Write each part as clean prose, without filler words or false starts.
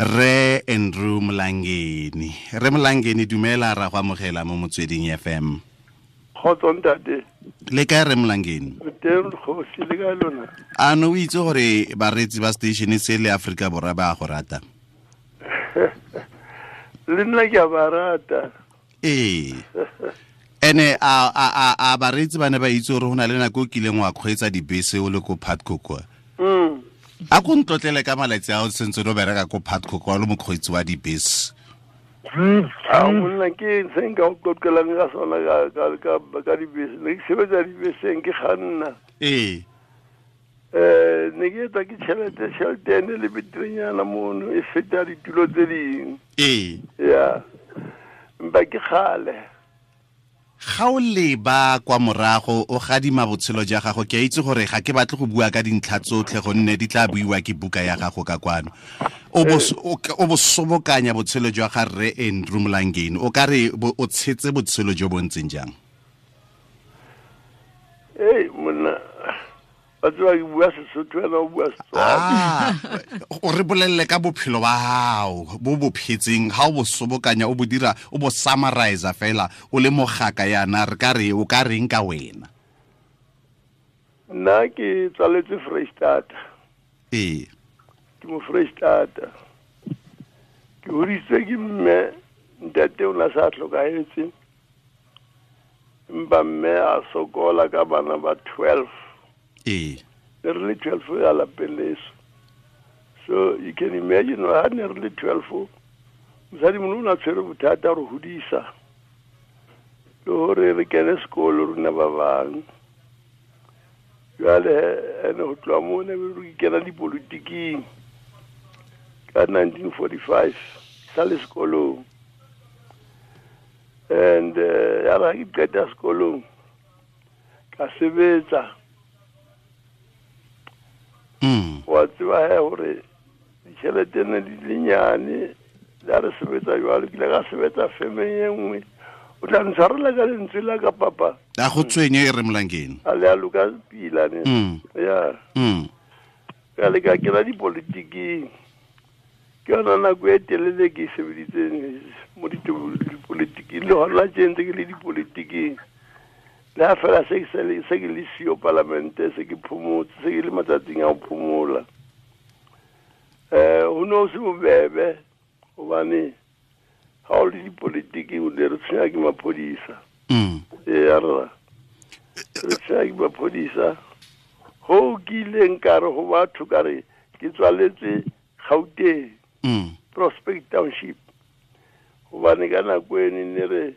Re Andrew Mlangeni. Re Mlangeni, dumela, ra go amogela mo Motsweding FM. Kgotso ntate. Le kae, re Mlangeni? Teng kgosi, le kae lona? A no o itse gore bareetsi ba station se le Aforika Borwa ba go rata? Le nna ke a ba rata. Ee. Ene a bareetsi ba ne ba itse gore go na le nako o kileng wa kgweetsa dibese o le ko Putco kwa? A ko ntlotlele ka malatsi a o sentse o bereka ko Putco kwa, o le mokgweetsi wa dibese. A monna, ke se nka o qoqelang ka sona ka dibese. Ne ke sebetsa dibeseng, ke kganna. Ne ke etsa ke tšhelete ene le beterenyana mono, e feta ditulo tse ding. Ya, empa ke kgale. Ga o leba kwa morago, o gadima botshelo ja gago, ke a itse gore ga ke batle go bua ka dintlha tsotlhe gonne di tla buiwa ke buka ya gago ka kwano. O bo sobokanya botshelo jwa ga Rre Andrew Mlangeni, o ka re o tshetse botshelo jo bo ntseng jang? Ei monna, ba tseba ke bua Sesotho, wena o bua Setswana. O re bolelele ka bophelo ba gago bo bo phetseng, ga o bo sobokanya, o bo dira, o bo summarize fela, o le mogaka yana, re ka re o ka reng ka wena? Nna ke tswaletswe Freistata. Ke mo Freistata. Ke hodisitswe ke mme, ntate o na sa tlhokahetse. Empa mme a sokola ka bana ba 12. Ne re le 12 ya lapeng leso. So you can imagine ha ne re le 12, mosadi mongwe o ne a tshwere bothata re hodisa le hore re kene sekolo rona ba bang. Jwale ene ho tloha moo ne re kena dipolotiking ka 1945, sa le sekolong. And ya re ha ke qeta sekolong ka sebetsa. Wa tseba he hore ditjhelete ne di le nyane, le ha re sebetsa jwalo, ke ile ka sebetsa femeng e nngwe. O tla ntshwarela ka lentswe la ka, papa. A go tshwenye, e re Mlangeni. A le a loka pila ne. Ya. Ka le ka kena dipolitiking. Ke yona nako e telele ke e sebeditseng mo dipolitiking, le hona tje ntse ke le dipolitiking. Le ha fela se ke se ke le siyo palamente, se ke phomotse, se ke le matsatsing a ho phomola. Ho no se bobebe hobane ha o le dipolitiking o ne re tshwenya ke maphodisa. Ee, rra. Re tshwenya ke maphodisa. Ho ke ileng ka re ho batho, ka re ke tswaletswe Gauteng, Prospect Township. Hobane ka nako eno ne re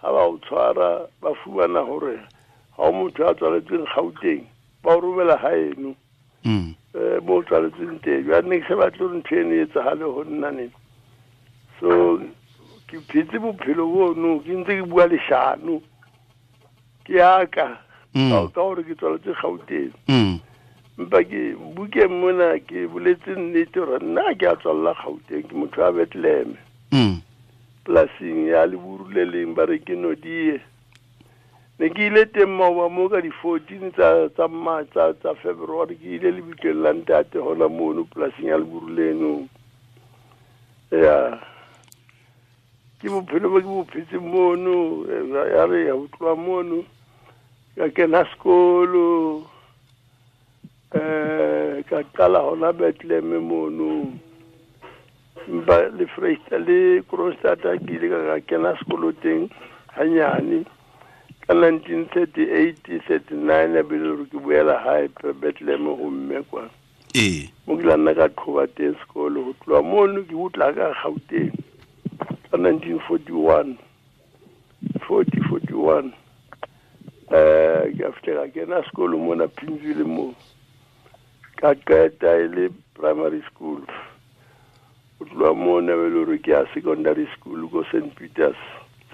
ha ba o tshwara, ba fumana hore ha o motho a tswaletsweng Gauteng, ba o romela haeno. Mo o tswaletsweng teng. Jwale ne ke sa batle hore ntho eno e etsahale ho nna ne. So ke phetse bophelo bono, ke ntse ke bua leshano. Ke yaka. Ka hore ke tswaletswe Gauteng. Empa ke bukeng mona ke boletse nnete hore nna ke a tswalla Gauteng, ke motho wa Bethlehem. Polasing ya Leburu le leng ba re ke Nodie. Ne ke ile teng maoba moo ka di-14 tsa February, ke ile lebitleng la ntate hona mono polasing ya Leburu leno. Ya. Ke bophelo bo ke bo phetseng mono, ya re ya utlwa mono, ka kena sekolo, ka qala hona Bethlehem mono. Empa le Freistata le Kroonstad ke ile ka kena sekolo teng hanyane. Ka 1938, 39, a be le hore ke boela hae Bethlehem ho mme kwa. Mo ke la nna ka qhoba teng sekolo, ho tloha mono ke utla ka Gauteng ka 1941, forty, forty-one. Ke a fihla ka kena sekolo mona Pimville moo. Ka qeta e le primary school. Ho tloha mona be le hore ke ya secondary school ko Saint Peters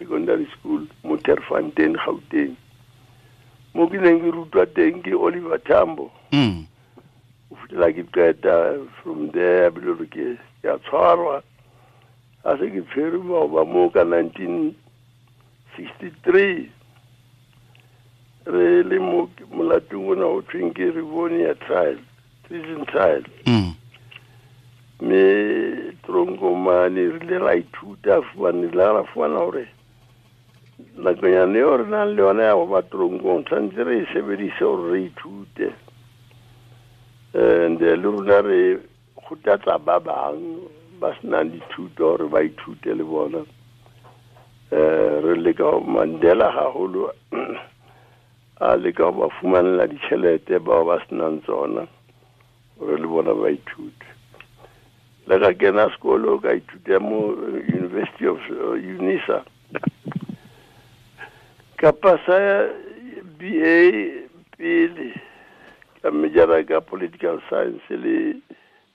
Secondary School mo Terfontein, Gauteng. Mo ke neng ke rutwa teng ke Oliver Tambo. Ho fihlela ke qeta from there, be le hore ke a tshwarwa. Ha se ke tshwerwe maoba moo ka 1963, re le mo molatong ona ho thweng ke Rivonia trial, treason trial. Mme tronkong mane re ile ra ithuta fumane la ra fumana hore nakonyana eo re nang le yona ya go ba tronkong tshwanetse re e sebedise gore re ithute. And le rona re kgothatsa ba bang ba senang dithuto gore ba ithute le bona. Re leka Mandela haholo a leka ho ba fumanela ditjhelete bao ba senang tsona gore le bona ba ithute. Le ka kena sekolo ka ithuta mo University of Unisa, ka pasa BA pele, ka majora ka political science le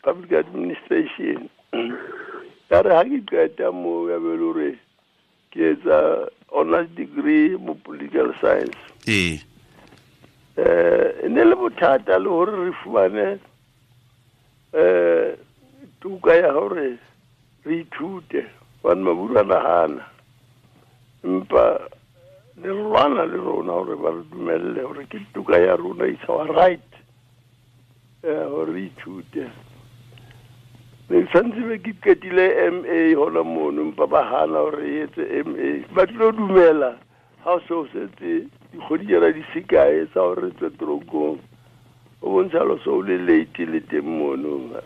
public administration. Ka re ha ke qeta mo ya be le hore ke etsa honors degree mo political science. Ee. E ne le bothata le hore re fumane tuka ya hore re ithute hobane maburu a nahana, empa le lwana le rona hore ba re dumelle hore ke tuka ya rona, it's our right hore re ithute. Ne santse be ke qetile MA hona mono, empa ba hana hore re etse MA. Ba tlo dumela ha o so setse dikgwedi tsena di se kae tsa hore re tswe tronkong, o bontsha lo so le late le teng mono.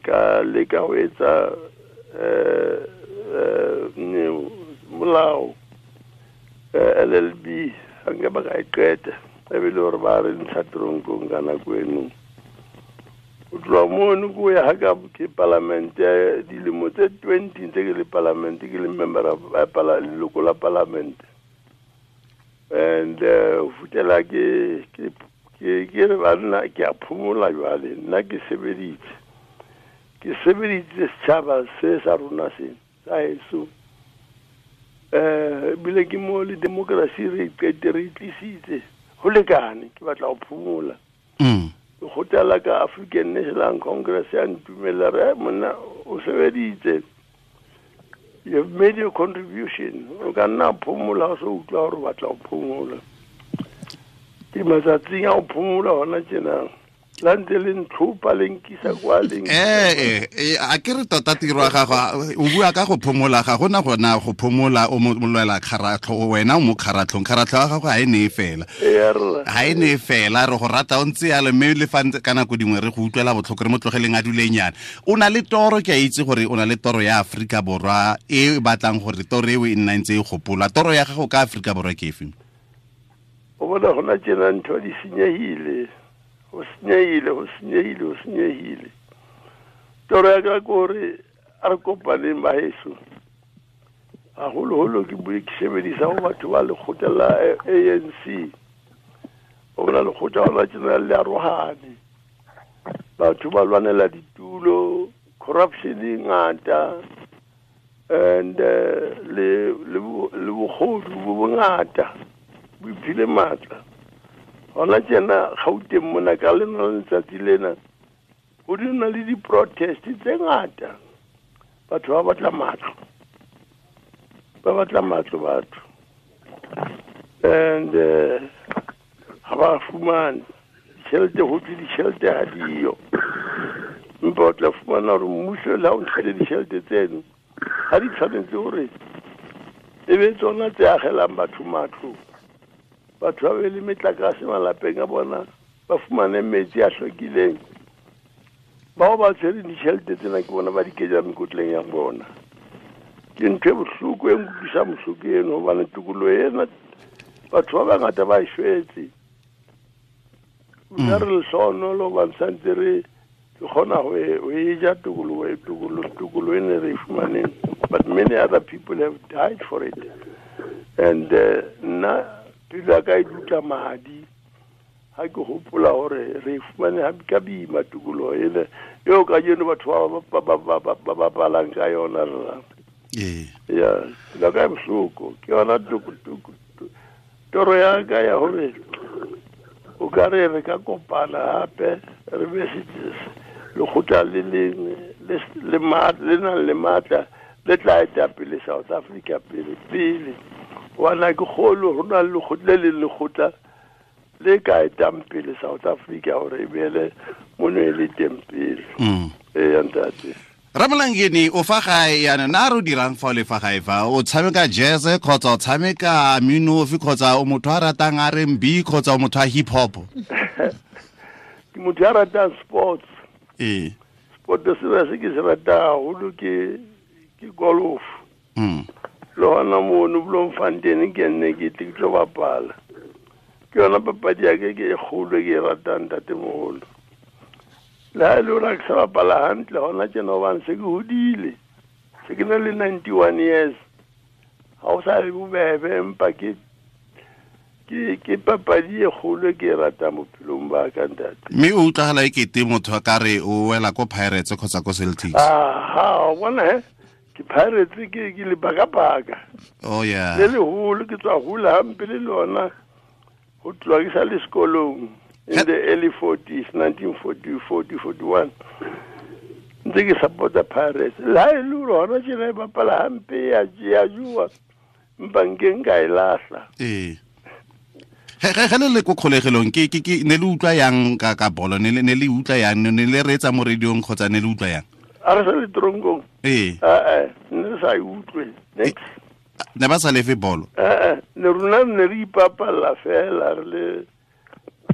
Ka leka ho etsa molao LLB, ha nka ba ka e qeta, e be le hore ba re ntsha tronkong ka nako eno. Ho tloha mono ko ya ha ka ke palamente dilemo tse 20 tse ke le palamente, ke le member of leloko la palamente. And ho fihlela ke re banna ke a phomola jwale, nna ke sebeditse. Ke sebeditse setjhaba se sa rona se sa heso. Ebile ke mo le democracy re qete re tlisitse ho lekane, ke batla ho phomola. Lekgotla la ka African National Congress ya ntumella re monna o sebeditse, you have made your contribution, o ka nna phomola o so utlwa hore o batla ho phomola. Ke matsatsing a ho phomola hona tjena, la ntse le ntlhopha le nkisa kwa le a ke re tota tiro ya gago o bua ka go phomola, ga gona gona go phomola o mo lwela kgaratlho, wena o mo kgaratlhong, kgaratlho ya gago ga e ne e fela, ga e ne e fela, re go rata o ntse yalo, mme le fa ka nako dingwe re go utlwela botlhoko re mo tlogeleng a dulenyana. O na le toro, ke a itse gore o na le toro ya Afrika Borwa e batlang gore toro eo e nna ntse e gopola. Toro ya gago ka Afrika Borwa ke efe? O bona gona tjena ntho di senyehile, ho senyehile, ho senyehile, ho senyehile. Toro ya ka ke hore a re kopaneng baheso, haholoholo ke bue ke sebedisa ho batho ba lekgotla la ANC. O bona lekgotla hona tjena le arohane, batho ba lwanela ditulo, corruption e ngata, and le bogodu bo bongata bo iphile matla. Hona tjena Gauteng mona ka lena letsatsi lena ho di na le di-protest tse ngata, batho ba batla matlo, ba batla matlo batho, and ha ba fumane ditjhelete, ho thwe ditjhelete ha diyo, empa o tla fumana hore mmuso le ha o ntshele ditjhelete tseno ha di tshwanetse hore e be tsona tse agelang batho matlo, batho ba be le metlakase malapeng a bona, ba fumane metsi a hlwekileng. Bao ba tshwereng ditjhelete tsena ke bona ba di kenya mekotleng ya bona. Ke ntho e bohloko e nkutlwisang bohloko eno, hobane tokoloho ena batho ba bangata ba e shwetse. Rona re lehlohonolo hobane santse re kgona ho e ja tokoloho tokoloho ene re e fumaneng, but many other people have died for it. And nna pelo ya ka e dutla madi ha ke hopola hore re fumane ha ka boima tokoloho ena eo kajeno batho ba bapalang ka yona rra. Ee. Ya, pelo ya ka e bohloko, ke yona toro ya ka ya hore o ka re re ka kopana hape re be lekgotla le leng le nang le matla le tla eta pele South Africa pele pele. Hobane ha ke kgolwe ho na le lekgotla le leng lekgotla le ka etang pele South Africa hore e beele mono e le teng pele. Ee, ntate. Ramolangeni o fa gae yana na re o dirang fa o le fa gae fa o tshameka jazz kgotsa o tshameka minofi kgotsa o motho a ratang R&B kgotsa o motho a hip hop? Ke motho a ratang sports. Ee. Sport se ke se ratang haholo ke golf. Le hona mono Bloemfontein ke nne ke tle ke tlo bapala. Ke yona papadi ya ke ke e kgolo ke e ratang ntatemoholo. Le ha e le hore ha ke sa bapala hantle hona tjena hobane se ke hodile. Se ke na le 91 years. Ha o sa le bobebe empa ke papadi e kgolo ke e ratang bophelong ba ka ntate. Mme o utlwagala e kete motho a ka re o wela ko Pirates kgotsa ko Celtics. Aha, o bona he? Ke Pirates ke lebakabaka. Oh yeah. Le leholo ke tswa hula hampe le lona ho tloha ke sa le sekolong. In the early 40s, 1940, 40, 41. Ntse ke support-a Pirates. Le ha e le hore hona tjena e bapala hampe ya jua. Empa nke nka e lahla. Ee. Ge le le ko kgolegelong ke ne le utlwa yang ka bolo, ne le utlwa yang, ne le reetsa mo radiong kgotsa ne le utlwa yang? A re sa le tronkong. Ee. Ne re sa e utlwe. Next. Ne ba sa lefe bolo? Ne rona ne re ipapalla fela re le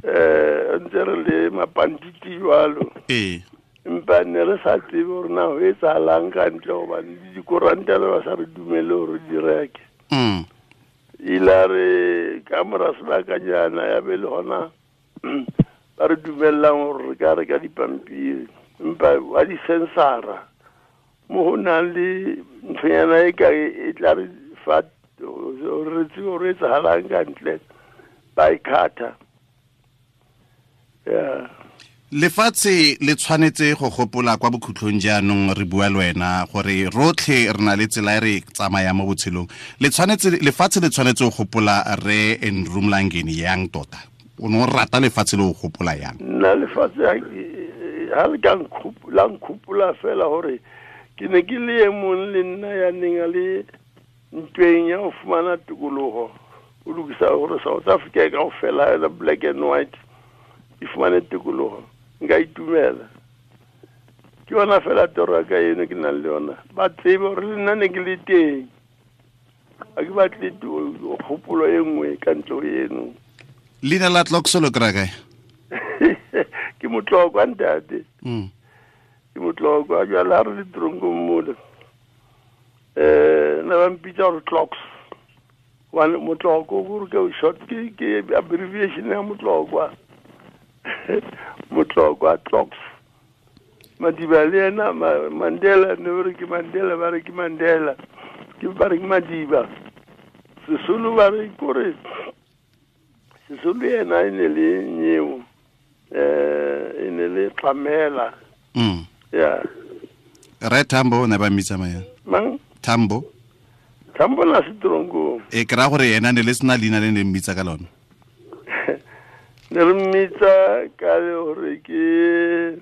ntse re le mapantiti jwalo. Ee. Empa ne re sa tsebe hore na ho etsahalang ka ntle hobane le dikoranta le ba sa re dumele hore di reke. Ile re ka mora sebakanyana ya be le hona ba re dumellang hore re ka reka dipampiri. Empa wa di-sensara mo ho nang le nthonyana e ka e tla re fa hore re tsebe hore etsahalang ka ntle, ba e khatha. Yeah. Lefatshe le tshwanetse go gopola kwa bokhutlong jaanong re bua le wena gore rotlhe re na le tsela e re tsamaya mo botshelong. Lefatshe le tshwanetse go gopola re Andrew Mlangeni yang tota? O ne o rata lefatshe le go gopola yang? Nna lefatshe ha le ka la nkgopola fela hore ke ne ke le e mong le nna ya neng a le ntweng ya ho fumana tokoloho. O lokisa hore South Africa e kaofela ya black and white e fumane tokoloho. Nka itumela. Ke yona fela toro ya ka eno ke nang le yona. Ba tsebe hore le nna ne ke le teng. Ha ke batle kgopolo e nngwe ka ntle ho eno. Leina la Tloks lo kry-a kae? Ke motlokwa ntate. Ke motlokwa jwale ha re le tronkong mole. Ne ba mpitsa hore Tloks. Hobane motloko hore ke short ke abbreviation ya motlokwa. Motlokwa Tloks. Madiba le yena Mandela ne ba re ke Mandela, ba re ke Mandela. Ke ba re ke Madiba. Sesolo ba re kore Sesolo yena e ne le nyeo. E ne le Tlamela. Yeah. Re Tambo ne ba mmitsa mang? Mang? Tambo. Tambo na se tronkong. E ke ra gore yena ne le sena leina le ne mmitsa ka lona. Ne re mmitsa ka hore ke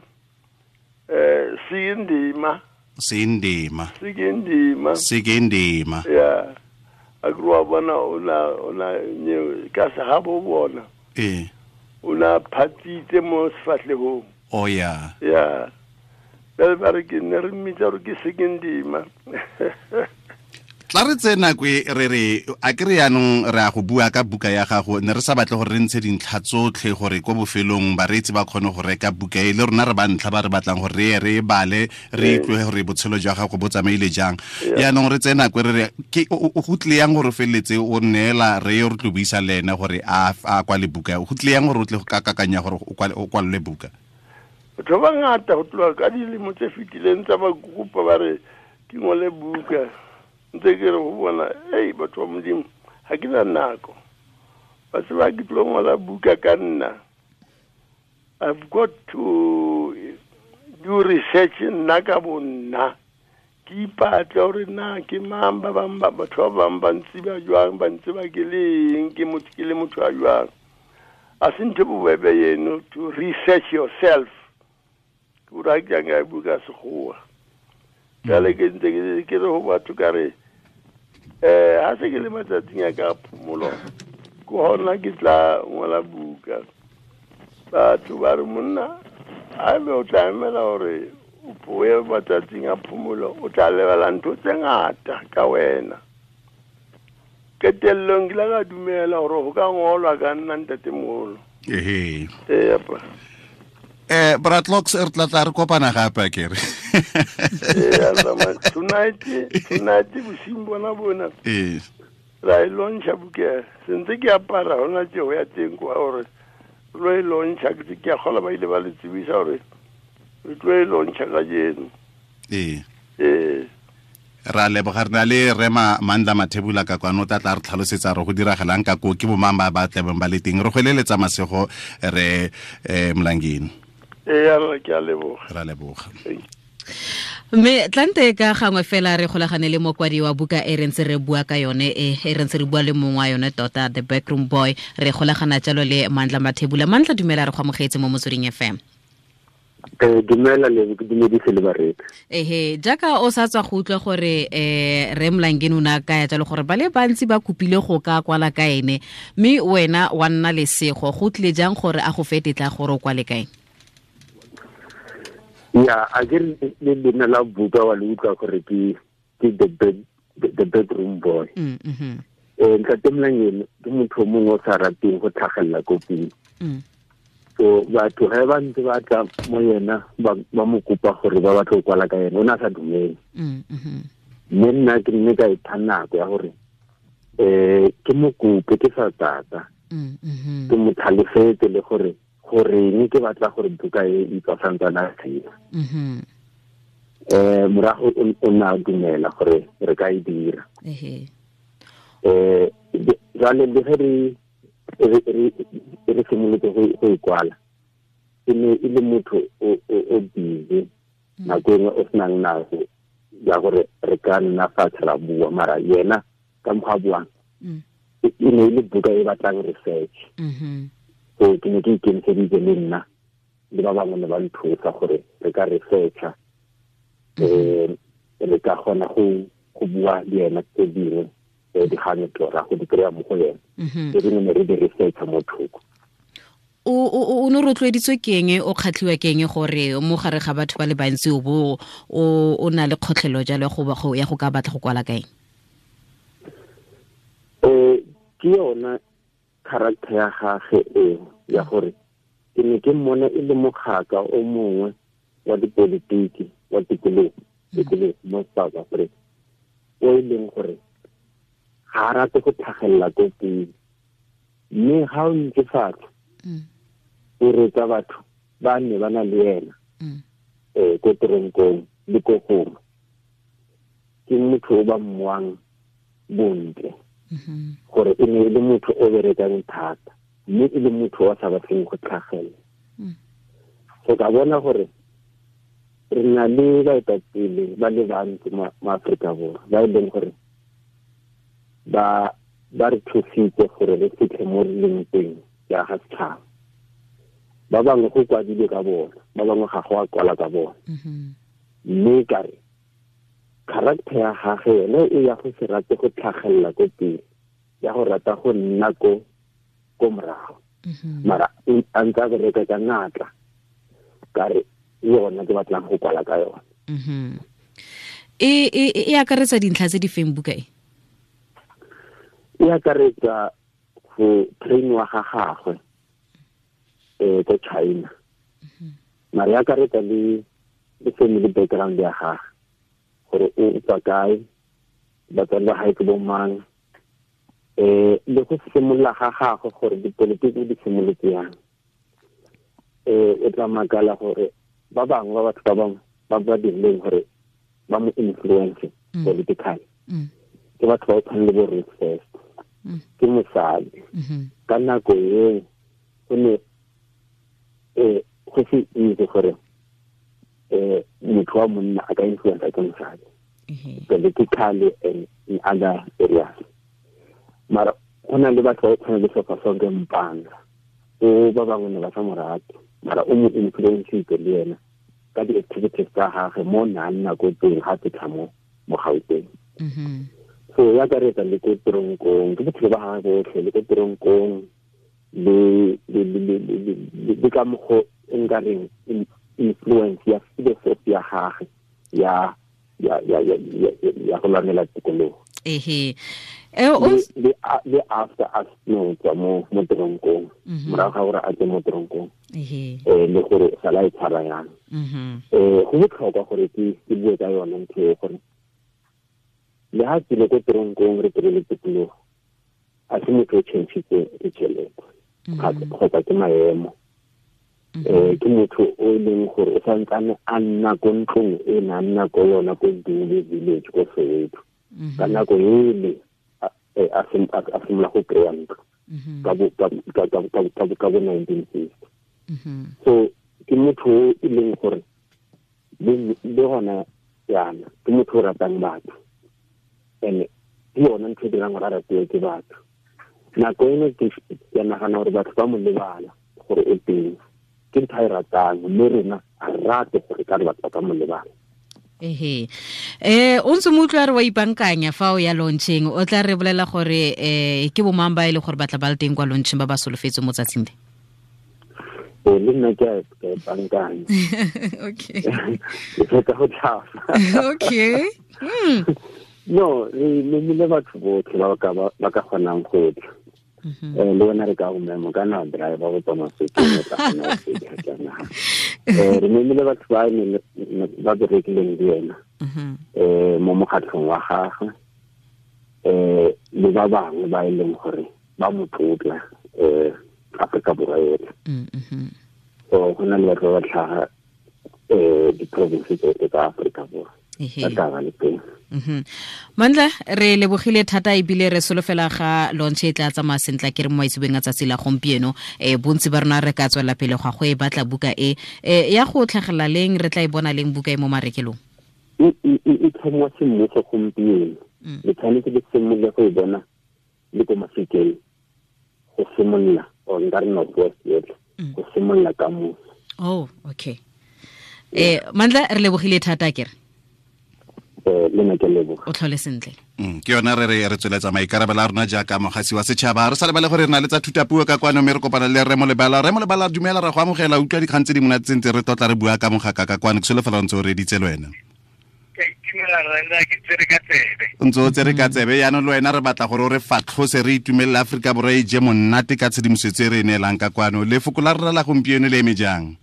Sindima. Sindima. Sindima. Sindima. Yeah. A groa bona ona ka se ha bo bona. Eh. Ona phatitse mo sefahlehong. Oh yeah. Yeah. Ba ba re ke ne re mmitsa hore ke Sindima. Tla re tse nako e re re a ke re yanong re a go bua ka buka ya gago, ne re sa batle gore re ntshe dintlha tsotlhe gore ko bofelong bareetsi ba kgone go reka buka e le rona re ba ntlha ba re batlang gore re ye re e bale re utlwe gore botshelo jwa gago bo tsamaile jang. Yaanong re tse nako e re re ke o go tlile yang gore o feleletse o neela re yo re tlo buisa le ene gore a kwale buka, go tlile yang gore o tle go ka kakanya gore o kwalele buka? Batho ba bangata ho tloha ka dilemo tse fetileng tsa ba kopa ba re ke ngole buka. Ntse ke re ho bona, ei batho ba Modimo, ha ke na nako. Ba tseba ke tlo ngola buka ka nna. I've got to do research nna ka bo nna. Ke ipatle hore na ke mang ba bang ba batho ba bang ba ntseba jwang, ba ntseba ke le eng, ke motho ke le motho a jwang. A se ntho e bobebe eno to research yourself. Ke hore ha ke ya nka buka sekgowa. Jwale ke ntse ke re ho batho ka re ha se ke le matsatsing a ka phomolo ke hona ke tla ngola buka. Batho ba re monna a be o tla emela hore o ye matsatsing a phomolo o tla lebala ntho tse ngata ka wena. Qetellong ke la ka dumela hore ho ka ngolwa ka nna ntatemoholo. Ehe. Ee, apa. Bratlox re tla re kopana gape a kere. Ee, tonight bosiung bona. Ee. Ra e launcha buka. Sentse ke apara hona tje ho ya teng kwa hore lo e launcha ke a kgola ba ile ba le tsebisa hore re tlo e launcha kajeno. Ee. Ee. Ra leboga re na le Rema Mandla Mathebula ka kwano tla re tlhalosetsa re go diragalang ka ko ke bomang ba ba tlebeng ba le teng. Re go eleletsa masego re Mlangeni. Ee, re ke a leboga. Ra leboga. Mme tlante ka gangwe fela re golagane le mokwadi wa buka e re ntse re bua ka yone e re ntse re bua le mongwe wa yone tota, The Backroom Boy. Re golagana jalo le Mandla Mathebula. Mandla, dumela, re go amogetse mo Motsweding FM. Dumela le ke dumedise le bareki. Ehe, jaaka o sa tswa go utlwa gore Re Mlangeni o ne a kaya jalo gore ba le bantsi ba kopile go ka kwala ka ene, mme wena wa nna lesego. Go tlile jang gore a go fe tetla gore o kwale ka ene? Ya, a ke le leina la buka wa le utlwa gore ke the bedroom boy. Ntate Mlangeni ke motho o mongwe o sa rateng go tlhagelela ko pele. So batho ge ba ntse ba tla mo yena ba mo kopa gore ba batla go kwala ka yena, o ne a sa dumele. Mme nna ke nne ka ipha nako ya gore ke mo kope ke sa tata. Ke mo tlhalosetse le gore goreng ke batla gore buka e e tswa santsana a tshela. Morago o ne a dumela gore re ka e dira. Jwale le ge re simolotse go e kwala, e ne e le motho o busy nako engwe o senang nako ya gore re ka nna fatshe ra bua, mara yena ka mokgwa a buang e ne e le buka e batlang research. So ke ne ke ikemiseditse le nna le ba bangwe ne ba nthusa gore re ka researcha, re ka kgona go bua le yena tse dingwe dikgang ra go di kry-a mo go yena, tse dingwe ne re di researcha mo thoko. O ne rotloeditswe ke eng, o kgatlhiwa ke eng gore mo gare ga batho ba le bantsi o bo o na le kgotlhelo jalo ya go ka batla go kwala ka eng? Ke yona character ya gagwe eo ya gore ke ne ke mmona e le mogaka o mongwe wa dipolitiki wa tikologo mo South Africa, o e leng gore ga a rate go tlhagelela ko pele, mme ga o ntse fatshe o reetsa batho ba ne ba na le yena ko teronkong le ko gongwe, ke motho o ba mmoang bontle, gore e ne e le motho o berekang thata, mme e le motho o sa batleng go tlhagelela. So ka bona gore re na le baetapele ba le bantsi mo Aforika Borwa ba e leng gore ba re thusitse gore re fitlhe mo re leng teng jaaka setšhaba. Ba bangwe go kwadilwe ka bona, ba bangwe ga go a kwala ka bona. Mme ka re character ya gagwe yone e ya go se rate go tlhagelela ko pele, ya go rata go nna ko morago, mara a ntse a bereka ka natla, ka re yona ke batlang go kwala ka yona. E akaretsa dintlha tse di feng buka e? E akaretsa go trainiwa ga gagwe ko China, mara e akaretsa le family background ya gagwe, gore o tswa kae, batswadi ba gae ke bo mang, le go simolola ga gagwe gore dipolitiki di simolotse yang. O tla makala gore ba bangwe ba batho ba bangwe ba ba dirileng gore ba mo influence politically ke batho ba o tshwana le bo Ruth First, ke mosadi. Ka nako eo go ne go se itse gore motho wa monna a ka influence ke mosadi politically and in other areas. Mara go na le batho ba o tshwana le Sofasonke Mpanga, o ba bangwe ne ba sa mo rate, mara o mo influencitse le yena ka di-activities tsa gagwe mo na nna ko teng ga fitlha mo Gauteng. So ya akaretsa le ko teronkong, ke bophelo ba gagwe botlhe le ko teronkong le ka mokgwa o nkareng influence ya philosophy ya gagwe ya ya ya ya ya go lwanela tikologo. Ehe. Le after a no tswa mo toronkong, morago ga gore a tswe mo toronkong, le gore sala e tshwara yang. Go botlhokwa gore ke bue ka yone ntho e, gore le ha tsile ko toronkong re kry-ile tikologo, a se motho o change-itse ditšhelete kgotsa ke maemo. Ke motho o e leng gore o santsane a nna ko ntlong e ne a nna ko yona ko Dule village ko Soweto. Ka nako ele a simolola go kry-a ntlo ka bo 1960. So ke motho o e leng gore le gona yana ke motho o ratang batho, and ke yona ntho e dirang gore a ratiwe ke batho. Nako eno ke nagana gore batho ba mo lebala gore o teng, ke ntho a e ratang, mme rona a rate gore ka re batho ba ka mo lebala. Ehe. O ntse mo utlwa re wa ipankanya fa o ya launching, o tla re bolela gore ke bo mang ba e le gore batla ba le teng kwa launching ba ba solofetse mo tsatsing le? Le nna ke a ipankanya. Okay. Ke fetsa go tlhafa. Okay. No, re memile batho botlhe ba ka kgonang go tla. Le wena re ka go memo ka na driver go tswa Mafikeng o tla kgona go fitlha ke naga. Re memile batho ba ne ba berekileng le ena mo mokgatlhong wa gagwe, le ba bangwe ba e leng gore ba mo tlotla Afrika Borwa yotlhe. So go na le batho ba ba tlhaga di-province tsotlhe tsa Afrika Borwa ba tla ba le teng. Mandla, re lebogile thata ebile re solofela ga launch e tla tsamaya sentle ke re mo maitsebeng a tsatsi la gompieno. Bontsi ba rona re ka tswela pele go e batla buka e ya go tlhagelela leng, re tla e bona leng buka e mo marekelong? E tlhomiwa semmuso gompieno. Le tshwanetse le simolole go e bona le ko Mafikeng go simolola, or nka re North West yotlhe go simolola ka moso. Oh, okay. Mandla, re lebogile thata ke re. Le nna ke leboga. O tlhole sentle. Ke yona re re tsweletsa maikarabelo a rona jaaka mogasi wa setšhaba. Re sa lebale gore re na le tsa thutapuo ka kwano, mme re kopana le Rre Molebala. Rre Molebala, dumela, ra go amogela. Utlwa dikgang tse di monate tse ntse re tlotla re bua ka mogaka ka kwano. Ke solofela o ntse o reditse le wena. Ke itumela rra, ke tsere ka tsebe. O ntse o tsere ka tsebe. Jaanong le wena re batla gore o re fatlhose, re itumelele Aforika Borwa e je monate ka tshedimosetso e re e neelang ka kwano. Lefoko la rra la gompieno le eme jang?